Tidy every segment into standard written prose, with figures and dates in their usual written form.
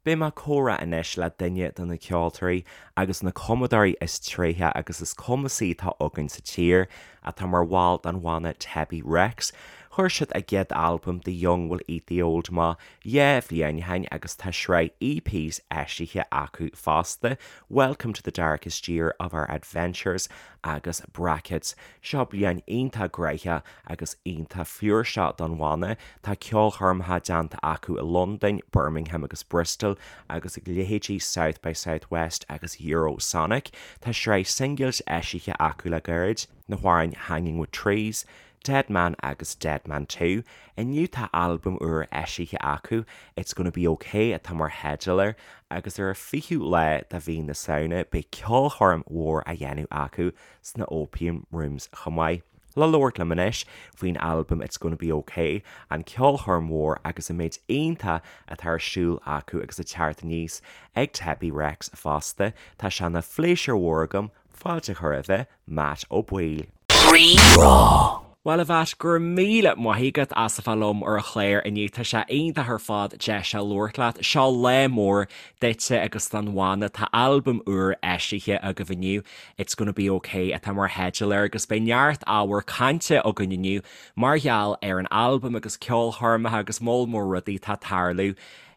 Beidh mé ag comhrá anois le duine de na ceoltóirí agus na cumadóirí is tréithe agus is cumasaí atá againn sa tír, atá mar bhall den bhanna Tebi Rex. Chuir siad a gcéad albam The Young Will Eat The Old amach 2 bhliain ó shin agus tá sraith EPs eisithe acu fosta, Welcome to the Darkest Year of Our Adventures agus Brackets. Seo bliain iontach gnoitheach agus iontach flúirseach don bhanna. Tá ceolchoirmeacha déanta acu i Londain, Birmingham agus Bristol agus ag leithéidí South by Southwest agus Eurosonic. Tá sraith singles eisithe acu le gairid, na hamhráin Hanging With Trees, Dead Man agus Dead Man 2. Inniu tá albam úr eisithe acu, It's Gonna Be OK atá mar theideal air, agus ar an 20ú lá de mhí na Samhna beidh ceolchoirm mhór á dhéanamh acu sna Opium Rooms chomh maith. Le labhairt liom anois faoin albam It's Gonna Be OK, an ceolchoirm mhór agus an méid iontach atá ar siúl acu agus ag teacht aníos ag Tebi Rex fosta, tá sé ina phléisiúr mhór agam fáilte a chur roimhe Matt Ó Baoill. Rí-Rá. Bhuel a Mhatt, go raibh míle maith agat as a bheith liom ar an chlár inniu. Tá sé iontach ar fad deis a labhairt leat. Seo lá mór duitse agus don bhanna. Tá albam úr eisithe agaibh inniu, It's Gonna Be OK atá mar theideal air agus beidh neart ábhar cainte againn inniu mar gheall ar an albam agus ceolchoirmeacha agus moll mór rudaí atá ag tarlú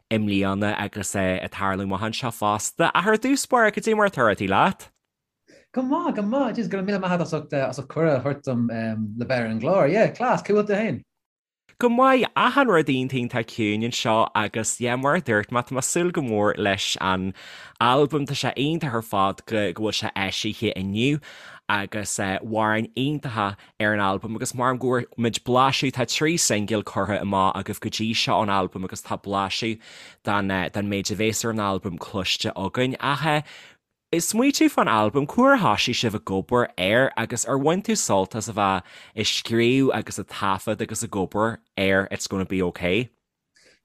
i mbliana agus ag tarlú amach anseo fosta. Ach ar dtús báire, cad é mar atá rudaí leat? Go maith, go maith. Jeez, go raibh míle maith agat as ucht, as ucht cuireadh a thabhairt dom le bheith ar an gclár. Yeah, class, cá bhfuil tú féin? Go maith, achan rud iontach iontach ciúin anseo agus yeah, mar a dúirt mé, tá mé ag súil go mór leis an albam, tá sé iontach ar fad go go bhfuil sé eisithe inniu agus amhráin iontacha ar an albam agus mar go bhfuair muid blaiseadh, tá 3 singil curtha amach agaibh go dtí seo ón albam agus tá blaiseadh den den méid a bhéas ar an albam cloiste againn ach Ag smaoitiú fán albam, cá huair a thoisigh sibh ag obair air agus ar bhain tú sult as a bheith ag scríobh agus ag taifead agus ag obair ar It's Gonna Be OK?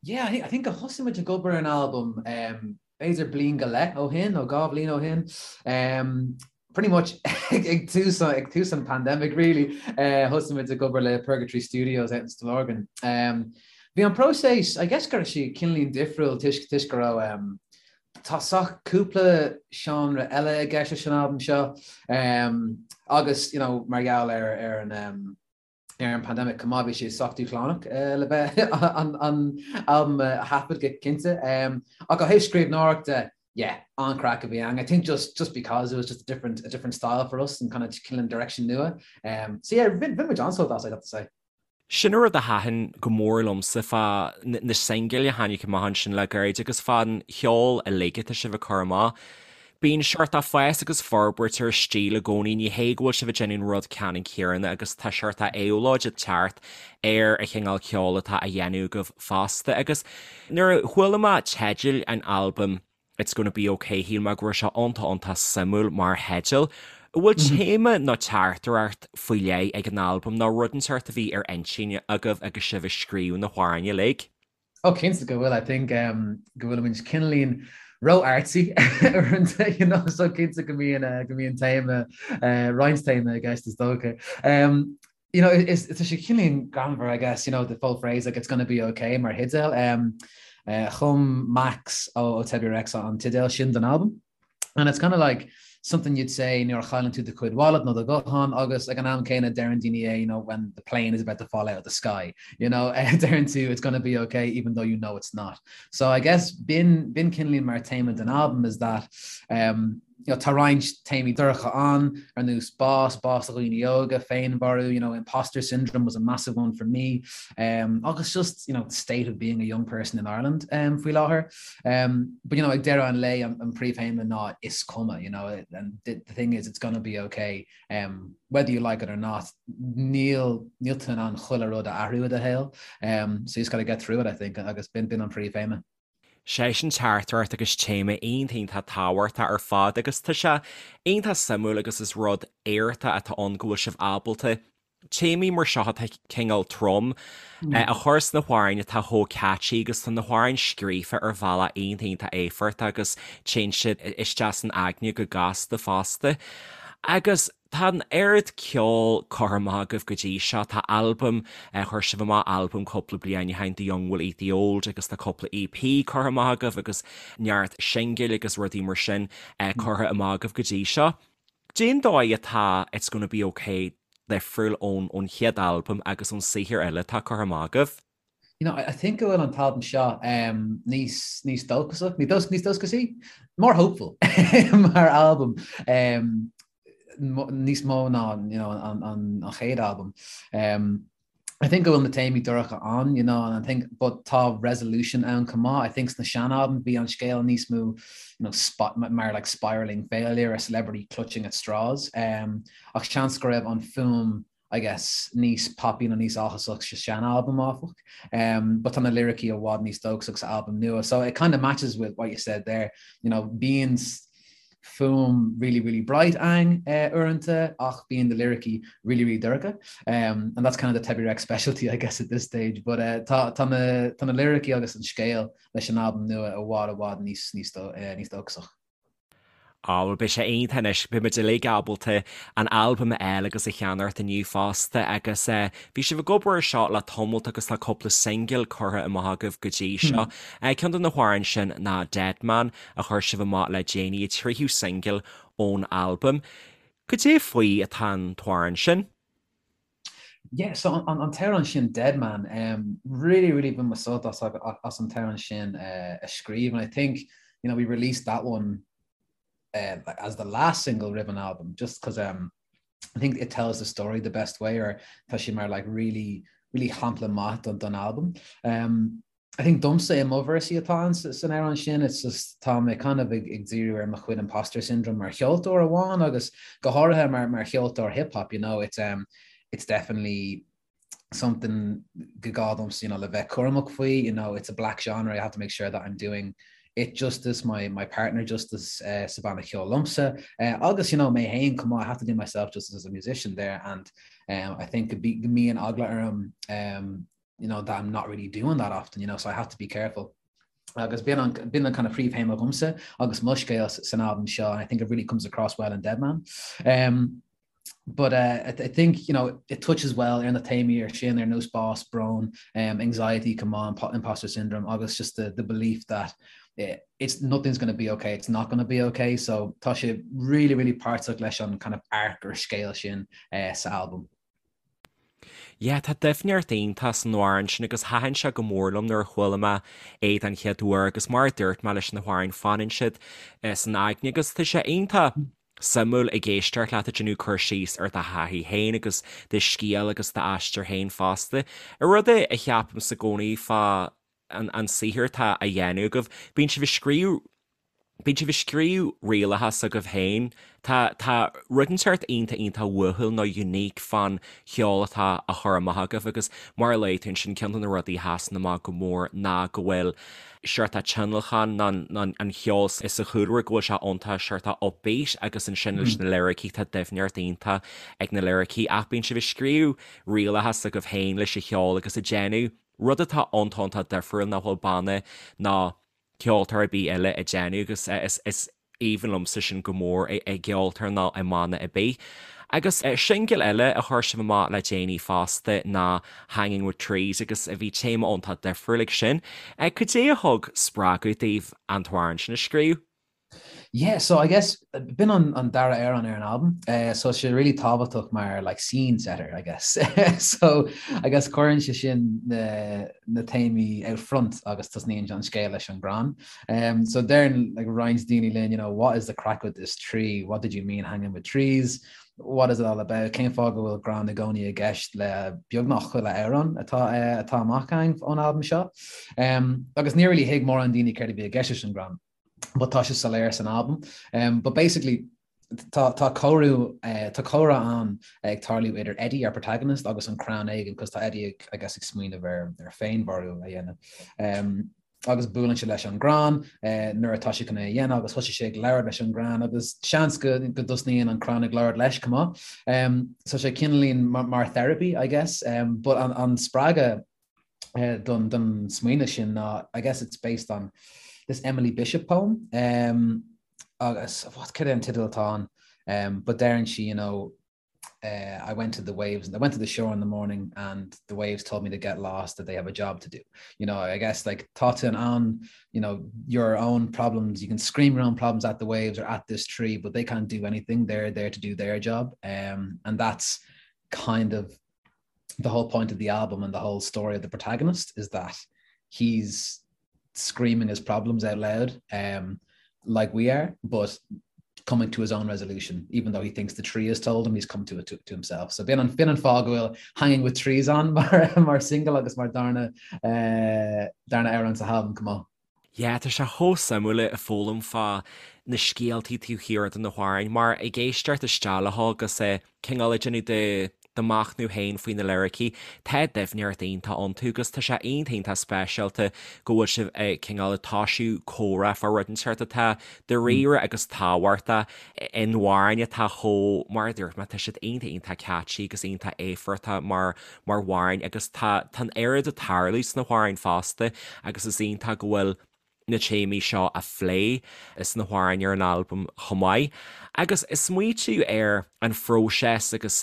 Yeah, I think, I think gur thosaigh muid ag obair ar an albam um, b'fhéidir bliain go leith ó shin nó 2 bhliain ó shin. Um, pretty much ag tús ag tús an pandemic really uh, thosaigh muid ag obair le Purgatory Studios out in Stillorgan. Um, bhí an próiseas, I guess go raibh sé cineáilín difriúil toisc toisc go raibh um, Tá sách cúpla seánra eile i gceist leis an albam seo agus you know mar gheall ar ar an ar an pandemic chomh maith bhí sé sách dúshlánach le bheith an an albam a thaifead go cinnte. Ach ó thaobh scríbhneoireachta, yeah, an-chraic a bhí ann. I think just just because it was just a different a different style for us and kind of cineál direction nua. So yeah, bhain muid an-sult as, I'd have to say. Sin an rud a thaitin go mór liomsa fá na singil a tháinig amach ansin le gairid agus fán cheol uilig atá sibh ag cur amach. Bíonn seort fás agus forbairt ar an stíl i gcónaí, ní hé go bhfuil sibh ag déanamh an rud ceannann céanna agus tá seort éabhlóid ag teacht ar an chineál ceoil atá á dhéanamh agaibh fosta. Agus nuair a chuala mé teideal an albaim, It's Gonna Be OK, shíl mé go raibh sé iontach iontach suimiúil mar theideal. An bhfuil téama nó teachtaireacht faoi leith ag an albam nó rud inteacht a bhí ar intinn agaibh agus sibh ag scríobh na hamhráin uilig? Oh cinnte go bhfuil, I think go bhfuilimid cineáilín ró-artsy uaireanta, you know, so cinnte go mbíonn go mbíonn téama, roinnt téama i gceist is dócha. You know, is tá sé cineáilín greannmhar, I guess, you know, the full phrase, like, it's gonna be okay mar theideal. Um, uh, chum Max ó, ó Tebi Rex an teideal sin don albam. And it's kind of like something you'd say nuair a chailleann tú do chuid wallet nó do ghuthán agus ag an am céanna deireann daoine é, you know, when the plane is about to fall out of the sky, you know, deireann tú it's gonna be okay even though you know it's not. So I guess b'in b'in cineáilín mar téama den albam is that um, you know, tá roinnt téamaí dorcha ann, ar nós bás, bás do dhaoine óga, féinmharú, you know, imposter syndrome was a massive one for me, um, agus just, you know, the state of being a young person in Ireland um, faoi láthair. Um, but, you know, ag deireadh an lae, an, an príomhthéama ná is cuma, you know, and the, the thing is it's gonna be okay, um, whether you like it or not, níl, níl tú in ann chuile rud a athrú i do shaol, um, so you just gotta get through it, I think, agus b'in, b'in an príomhthéama. Sé sin teachtaireacht agus téama iontach iontach tábhachtach ar fad agus tá sé iontach suimiúil agus is rud éachtach atá ann go bhfuil sibh ábalta téamaí mar seo atá cineál trom a chur sna hamhráin atá chomh catchy agus tá na hamhráin scríofa ar bhealach iontach iontach éifeachtach agus téann siad isteach san aigne go gasta fosta. Agus. Tá an oiread ceoil curtha amach agaibh go dtí seo, tá albam, chuir sibh amach albam cúpla bliain ó shin, The Young Will Eat the Old agus tá cúpla EP curtha amach agaibh agus neart singil agus rudaí mar sin curtha amach agaibh go dtí seo. Cén dóigh atá It's Gonna Be Ok difriúil ón ón chéad albam agus ón saothar eile atá curtha amach agaibh? You know, I think go bhfuil an t-albam seo um, níos, níos dóchasach, níos, níos dóchasaí, more hopeful mar albam um, níos mó ná you know, an, an, an chéad albam. Um, I think go bhfuil na téamaí dorcha ann, you know, and I think but tá resolution ann chomh maith. I think sna sean-albaim bhí an scéal níos mó you know, sp mar like spiraling failure, a celebrity clutching at straws. Um, ach seans go raibh an fuaim I guess, níos poppy nó níos áthasach sa sean-albam áfach. Um, but tá na liricí i bhfad níos dóchasach sa albam nua. So it kind of matches with what you said there. You know, bíonn fuaim really, really bright ann uh, uaireanta ach bíonn na liricí really, really dorcha. Um, and that's kind of the Tebi Rex specialty, I guess, at this stage. But uh, tá, tá, na, tá na liricí agus an scéal leis an albam nua i bhfad i bhfad níos, níos, do, uh, níos dóchasach. Á, bhuel, beidh sé iontach anois, beidh muid uilig ábalta an albam a fháil agus a cheannacht inniu fosta agus eh, bhí sibh ag obair ar seo le tamalt agus tá cúpla singil curtha amach agaibh go dtí seo. Eh, ceann de na hamhráin sin ná Dead Man a chuir sibh amach le déanaí, an tríú singil ón albam. Cad é faoi atá an t-amhrán sin? Yeah, so an, an t-amhrán sin Dead Man, um, really, really bhain mé sult as, as an t-amhrán sin uh, a scríobh, and I think, you know, we released that one uh, as the last single roimh an album, just because um, I think it tells the story the best way, or tá sé mar like really, really shampla maith don, don album. Um, I think domsa i mo véarsaí atá ann san amhrán sin, it's just tá mé kind of ag ag díriú ar mo chuid imposter syndrome mar cheoltóir amháin agus go háirithe mar mar cheoltóir hip hop, you know, it's um it's definitely something go gá domsa, you know, le bheith cúramach faoi, you know, it's a black genre, I have to make sure that I'm doing it justice, my my partner justice uh, sa bhanna ceoil liomsa uh, agus you know mé féin chomh maith, I have to do myself justice as a musician there and um, I think go mbíonn eagla orm um, you know, that I'm not really doing that often, you know, so I have to be careful. Agus b'in an, b'in an kind of príomhthéama dhomsa agus mo scéal san albam seo, and I think it really comes across well in Deadman. Um, but uh, I, I think you know it touches well ar na téamaí ar sin ar nós bás, brón, um, anxiety, come on, imposter syndrome, agus just the, the belief that eh, it's nothing's going to be okay, it's not going to be okay. So tá sé really, really páirteach leis an kind of arc or scéal sin uh, sa albam. Yeah, tá doimhneacht iontach san amhrán sin agus thaitin sé go mór liom nuair a chuala mé é den chéad uair agus mar a dúirt mé leis na hamhráin fanann siad san aigne agus tá sé iontach suimiúil ag éisteacht leat ag déanamh cur síos ar do thaithí féin agus do scéal agus d'aistear féin fosta. Rud a cheapaimse i gcónaí fá an saothar atá á dhéanamh agaibh, bíonn sibh ag scríobh Bíonn sibh ag scríobh rialacha s'agaibh féin. Tá, tá rud inteacht iontach iontach uathúil nó unique fán cheol atá á chur amach agaibh agus mar a luaigh tú ansin ceann de na rudaí a sheasann amach go mór ná go bhfuil seort tionlacan nó an cheol sa chúlra go bhfuil sé iontach seort upbeat agus ansin leis na liricí tá doimhneacht iontach ag na liricí ach bíonn sibh ag scríobh rialacha s'agaibh féin leis an cheol agus ag déanamh rud atá iontach iontach difriúil nach bhfuil banna ná ceoltóir ar bith eile ag déanamh agus is aoibhinn liomsa sin go mór i gceoltóir nó i mbanna ar bith. Agus singil eile a chuir sibh amach le déanaí fosta ná Hanging With Trees agus bhí téama iontach difriúil ag sin. Cad é a thug spreagadh daoibh an t-amhrán sin a scríobh? Yeah, so I guess b'in an, an dara amhrán ar an albam, uh, so sé really tábhachtach mar like scene setter, I guess. so I guess cuireann sé sin na, na téamaí out front agus tosnaíonn an scéal leis an gcrann. Um, so deireann like, roinnt daoine linn, you know, what is the craic with this tree? What did you mean hanging with trees? What is it all about? Cén fáth go bhfuil crann i gcónaí i gceist le beagnach chuile amhrán atá, uh, atá amach againn ón albam seo? Um, agus níor really thuig mórán daoine céard a bhí i gceist leis an gcrann. but tá sé soiléir san albam. Um, but basically tá tá comhrú uh, tá comhrá ann ag tarlú idir Eddie, our protagonist, agus an crann éigin, cos tá Eddie ag, I guess, ag smaoineamh ar, ar féinmharú a dhéanamh. Um, agus buaileann sé leis an gcrann uh, nuair atá sé chun é a dhéanamh agus thosaigh sé ag labhairt leis an gcrann agus seans go, go dtosnaíonn an crann ag labhairt leis chomh maith. Um, so sé cineáilín mar, mar therapy, I guess, um, but an, an spreagadh don don smaoineamh sin ná I guess it's based on this Emily Bishop poem um, agus what cad é an teideal atá ann um, but deireann sí you know, I went to the waves and I went to the shore in the morning and the waves told me to get lost that they have a job to do. You know, I guess like tá tú in ann, you know, your own problems, you can scream your own problems at the waves or at this tree, but they can't do anything. They're there to do their job. Um, and that's kind of the whole point of the album and the whole story of the protagonist is that he's screaming his problems out loud um, like we are, but coming to his own resolution, even though he thinks the tree has told him he's come to it to, to himself. So b'in an b'in an fáth go bhfuil hanging with trees ann mar, mar single agus mar darna uh, darna amhrán sa albam chomh maith. Yeah, tá sé chomh suimiúil ag foghlaim fá na scéaltaí taobh thiar de na hamhráin, mar ag éisteacht isteach leo agus ag cineál ag déanamh do do mhachnamh féin faoi na liricí, tá doimhneacht iontach iontu agus tá sé iontach iontach speisialta go bhfuil sibh ag cineál ag toisiú comhrá fá rud inteacht atá dáiríre agus tábhachtach in amhráin atá chomh, mar a dúirt mé, tá siad iontach iontach catchy agus iontach éifeachtach mar mar amhráin agus tá tá an oiread ag tarlú sna hamhráin fosta agus is iontach go bhfuil na téamaí seo á phlé sna hamhráin ar an albam chomh maith. Agus ag smaoitiú ar an phróiseas agus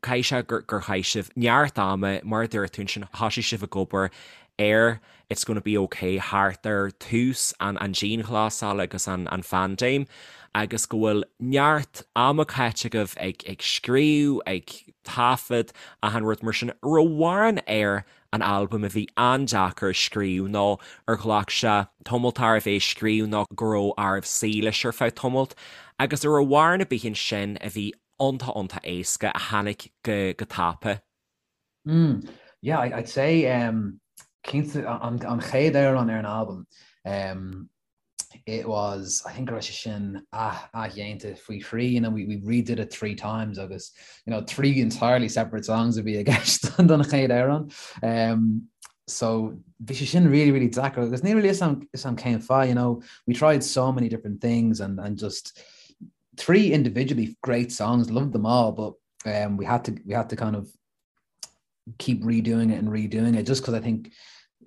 caithfidh sé gur gur chaith sibh neart ama, mar a dúirt tú ansin, thosaigh sibh ag obair ar It's Gonna Be Ok thart ar tús an an dianghlasála agus an an phaindéim agus go bhfuil neart ama caite agaibh ag ag scríobh, ag taifead, achan rud mar sin. Raibh amhrán ar an albam a bhí an-deacair a scríobh nó ar ghlac sé tamalt oraibh é a scríobh nó go raibh oraibh suí leis ar feadh tamalt agus an raibh amhrán ar bith ansin a bhí iontach iontach éasca a tháinig go go tapa. Mm, yeah, I'd say um, cinnte an, an chéad amhrán ar an albam um, it was I think go raibh sé sin athdhéanta faoi thrí you know we, we redid it three times agus you know three entirely separate songs a bhí i gceist don chéad amhrán um, so bhí sé sin really really deacair agus níl really fhios a'm cén fáth you know we tried so many different things and and just three individually great songs loved them all but um, we had to we had to kind of keep redoing it and redoing it just because I think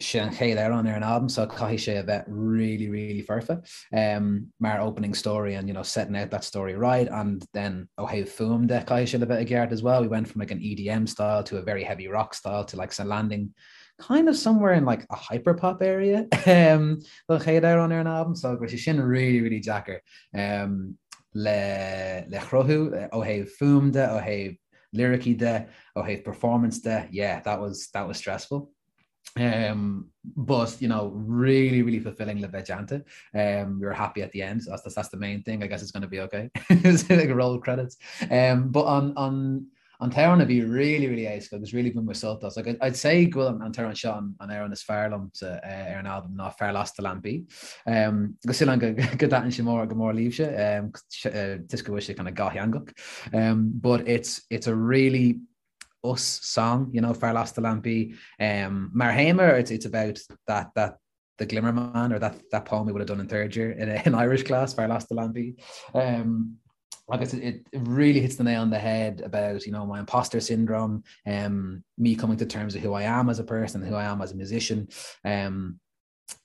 sé an chéad amhrán ar an album so caithfidh sé a bheith really really foirfe um, mar opening story and you know setting out that story right and then ó thaobh fuaim de caithfidh sé a bheith i gceart as well we went from like an EDM style to a very heavy rock style to like a landing kind of somewhere in like a hyperpop area um, don chéad amhrán ar an album so go raibh sé sin really really deacair um, le le chruthú ó thaobh fuaim de ó thaobh liricí de ó thaobh performance de yeah that was that was stressful um, but you know really really fulfilling le bheith déanta um, we were happy at the end so that's, that's the main thing I guess it's going to be okay like roll credits um, but on on an t-amhrán a bhí really really éasca agus really bhain mé sult as like I'd say go bhfuil an t-amhrán seo an amhrán is fearr liomsa uh, ar an album ná Fear Lasta Lampaí um, agus sílim go go dtaitníonn sé mór go mór libhse um, uh, toisc go bhfuil sé kind of dhátheangach um, but it's it's a really us song you know Fear Lasta Lampaí um, mar théama it's it's about that that the Glimmer Man or that that poem we would have done in third year in, in Irish class Fear Lasta Lampaí um, agus it, it really hits the nail on the head about you know my imposter syndrome um, me coming to terms with who I am as a person who I am as a musician um,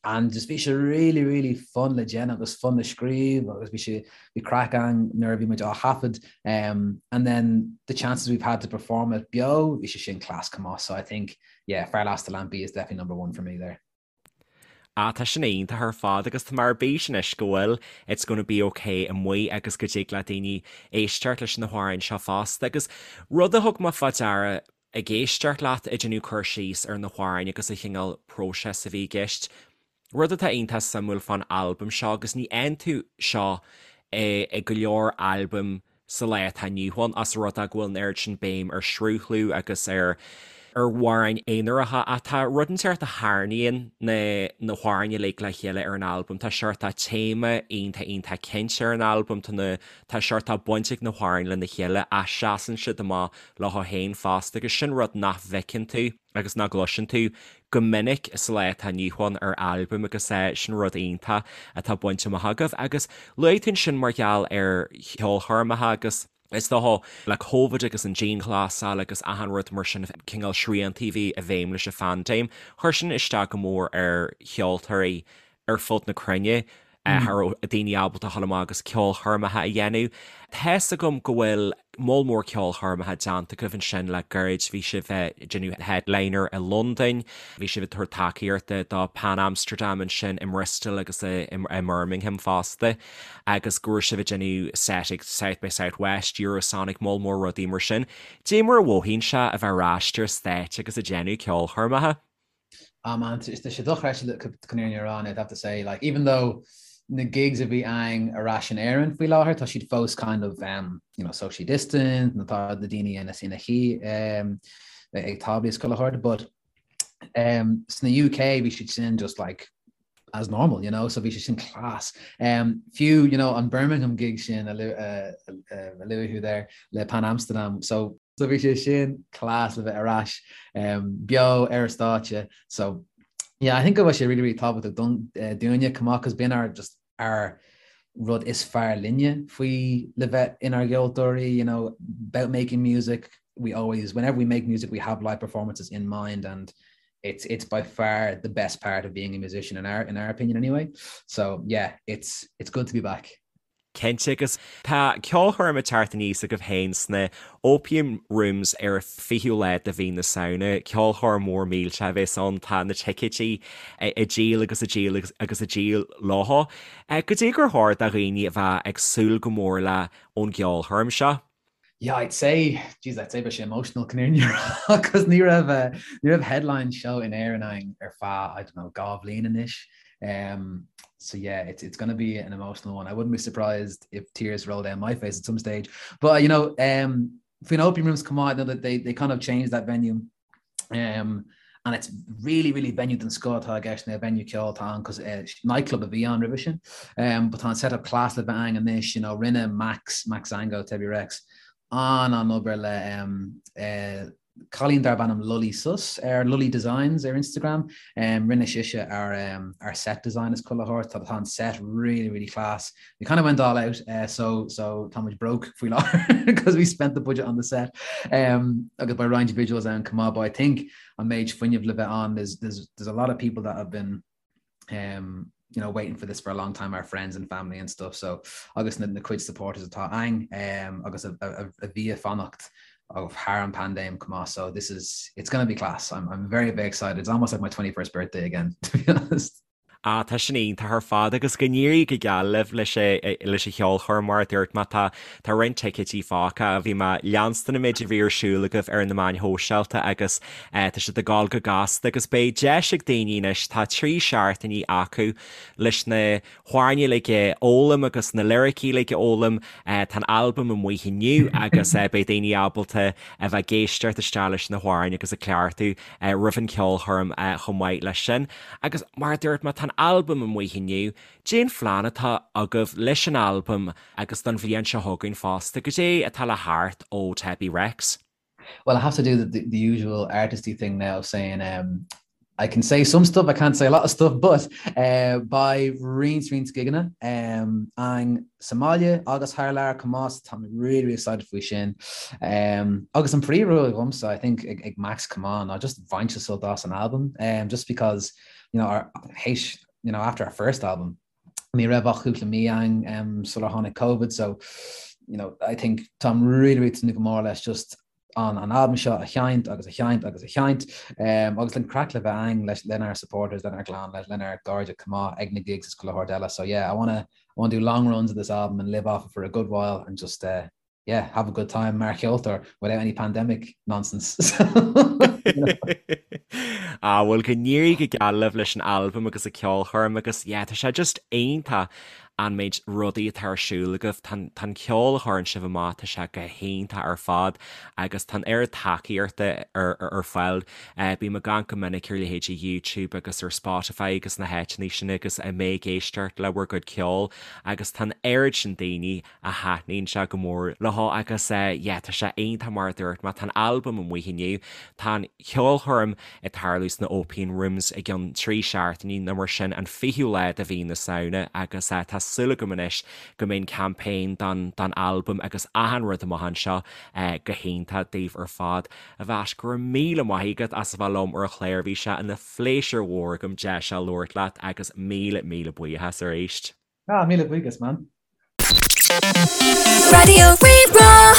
and just bhí sé really really fun le déanamh agus fun le scríobh agus bhí sé bhí craic againn nuair a bhí muid á thaifead um, and then the chances we've had to perform it beo bhí sé sin class chomh maith so I think yeah Fear Lasta Lampaí is definitely number one for me there. Ah, tá sin iontach ar fad agus tá mé ar bís anois go bhfuil It's Gonna Be Ok amuigh agus go dtig le daoine éisteacht leis na hamhráin seo fosta. Agus rud a thug mé fá deara ag éisteacht leat ag déanamh cur síos ar na hamhráin agus an chineál próiseas a bhí i gceist, rud atá iontach suimiúil fán albam seo agus ní fhaigheann tú seo i go leor albaim sa lá atá inniu ann, os rud é go bhfuil an oiread sin béim ar shruthlú agus ar ar amhráin aonaracha ach tá rud inteacht a tharraingíonn na na hamhráin uilig le chéile ar an albam. Tá seort téama iontach iontach cinnte ar an albam, tá na tá seort baint ag na hamhráin lena chéile ach seasann siad amach leo féin fosta agus sin rud nach bhfeiceann tú agus nach gcloiseann tú go minic sa lá atá inniu ann ar albam agus sin rud iontach atá bainte amach agaibh. Agus luaigh tú ansin mar gheall ar cheolchoirmeacha agus is dócha le Covid agus an dianghlasáil agus achan rud mar sin, cineál sriantaí a bhí i bhfeidhm leis an phaindéim, chuir sin isteach go mór ar cheoltóirí ar fud na cruinne. Cha raibh daoine ábalta a dhul amach agus ceolchoirmeacha a dhéanamh. Tá's agam go bhfuil moll mór ceolchoirmeacha déanta agaibh ansin le gairid. Bhí sibh ag déanamh headliner i Londain, bhí sibh ag tabhairt tacaíochta do Pan Amsterdam ansin i mBristol agus i mBirmingham fosta agus go raibh sibh ag déanamh set ag South by Southwest, Eurosonic, moll mór rudaí mar sin. Dé mar a mhothaíonn sé a bheith ar ais ar stáitse agus ag déanamh ceolchoirmeacha? Ah man, tá sé dochreidte chun an fhírinne a rá, I'd have to say, like even though na gigs a bhí againn ar ais in Éirinn faoi láthair, tá siad fós kind of um, you know, socially distant, nó tá na daoine ina ina shuí um, ag táblaí is chuile shórt, but um, sna UK bhí siad sin just like as normal, you know, so bhí sé sin class. Um, fiú, you know, an Birmingham gig sin a uh, uh, a luaigh tú there le Pan Amsterdam, so So bhí sé sin class le bheith ar ais um, beo ar an stáitse. So yeah, I think go bhfuil sé really really tábhachtach don uh, dúinne chomh maith cos b'in ár just ár rud is fearr linne faoi le bheith inár gceoltóirí, you know, about making music. We always, whenever we make music, we have live performances in mind and it's it's by far the best part of being a musician in our in our opinion anyway. So yeah, it's it's good to be back. Cinnte, agus tá ceolchoirm ag teacht aníos agaibh féin sna Opium Rooms ar an 20ú lá de mhí na Samhna. Ceolchoirm mhór millteach a bheas ann, tá na ticéidí ag díol agus ag díol agus ag díol leo. Goidé gur chóir do dhaoine a bheith ag súil go mór le ón gceolchoirm seo? Yeah, I'd say, jeez, I'd say beidh sé emotional chun an fhírinne a rá, cos ní raibh, eh, ní raibh headline show in Éirinn againn ar feadh, I don't know, 2 bhliain anois. Um, so yeah, it's, it's gonna be an emotional one. I wouldn't be surprised if tears roll down my face at some stage. But, you know, um, faoin Opium Rooms chomh maith, you know, that they, they kind of changed that venue. Um, and it's really, really venue den scoth atá i gceist now, venue ceoil atá ann, cos eh, nightclub a bhí ann roimhe sin. Um, but tá an setup class le bheith againn anois, you know, rinne Max, Max Zango, Tebi Rex, an-an-obair le um, eh, cailín darb ainm Lully Sus ar Lully Designs ar Instagram. Um, rinne sise ár, um, ár set design is chuile shórt, tá tá an set really, really class. We kind of went all out, uh, so so tá muid broke faoi láthair because we spent the budget on the set. Um, agus beidh roinnt visuals ann chomh maith, but I think an méid fuinneamh le bheith ann, there's, there's, there's a lot of people that have been um, you know, waiting for this for a long time, our friends and family and stuff. So agus na, na cuid supporters atá againn um, agus a, a, a bhí ag fanacht of thar an paindéim chomh maith. So this is it's going to be class. I'm, I'm very, very excited. It's almost like my 21st birthday again, to be honest. Ah, tá sin iontach ar fad agus go n-éirí go geal libh leis leis an cheolchoirm mar a dúirt mé tá tá roinnt ticéidí fágtha. Bhí mé ag leanstan an méid a bhí ar siúl agaibh ar na meáin shóisialta agus tá siad ag gabháil go gasta agus beidh deis ag daoine anois, tá 3 seachtainí acu leis na hamhráin uilig a fhoghlaim agus na liricí uilig a fhoghlaim. Tá an albam amuigh inniu agus beidh daoine ábalta a bheith ag éisteacht isteach leis na hamhráin agus ag cleachtadh roimh an cheolchoirm chomh maith leis sin. Agus mar a dúirt mé, tá an albam amuigh inniu. Cén phlean atá agaibh leis an albam agus don bhliain seo chugainn fosta? Goidé atá le theacht ó Tebi Rex? Well, I have to do the, the, the usual artisty thing now of saying um, I can say some stuff, I can't say a lot of stuff, but uh, beidh roinnt roinnt gigeanna um, againn sa mbaile agus thar lear chomh maith, tá mé really, really excited faoi sin. Um, agus an príomhrud dhomsa, I think ag, ag Max chomh maith ná just baint sult as an album, um, just because you know, our, théis, you know, after our first album, ní raibh ach cúpla mí againn um, sular tháinig COVID, so you know, I think táim really, really tnúth go mór leis just an an albam seo a sheinnt agus a sheinnt agus a sheinnt um, agus an craic le bheith againn leis lenár supporters, lenár gclann, le, lenár gcairde chomh maith ag na gigs is chuile shórt eile. So yeah, I wanna, I wanna do long runs of this album and live off it for a good while and just uh, yeah, have a good time mar cheoltóir without any pandemic nonsense. Ah, bhuel go n-éirí go geal libh leis an albam agus an ceolchoirm agus yeah, tá sé just iontach an méid rudaí atá ar siúl agaibh. Tá an ceol a chuireann sibh amach, tá sé go hiontach ar fad agus tá an oiread tacaíochta ar fáil. Bím ag amharc go minic ar leithéidí YouTube agus ar Spotify agus na háiteanna sin agus mé ag éisteacht le bhur gcuid ceoil agus tá an oiread sin daoine a thaitníonn sé go mór leo agus yeah tá sé iontach mar a dúirt mé, tá an albam amuigh inniu, tá an cheolchoirm ag tarlú sna Opium Rooms i gceann 3 seachtainí nó mar sin, an 20ú lá de mhí na Samhna agus tá súil agam anois go mbeidh an campaign don don albam agus achan rud amach anseo go hiontach daoibh ar fad. A Mhatt, go raibh míle maith agat as a bheith liom ar an chlár, bhí sé ina phléisiúr mhór agam deis a labhairt leat agus míle míle buíochas arís. Ah, míle buíochas, man. Raidió Rí-Rá.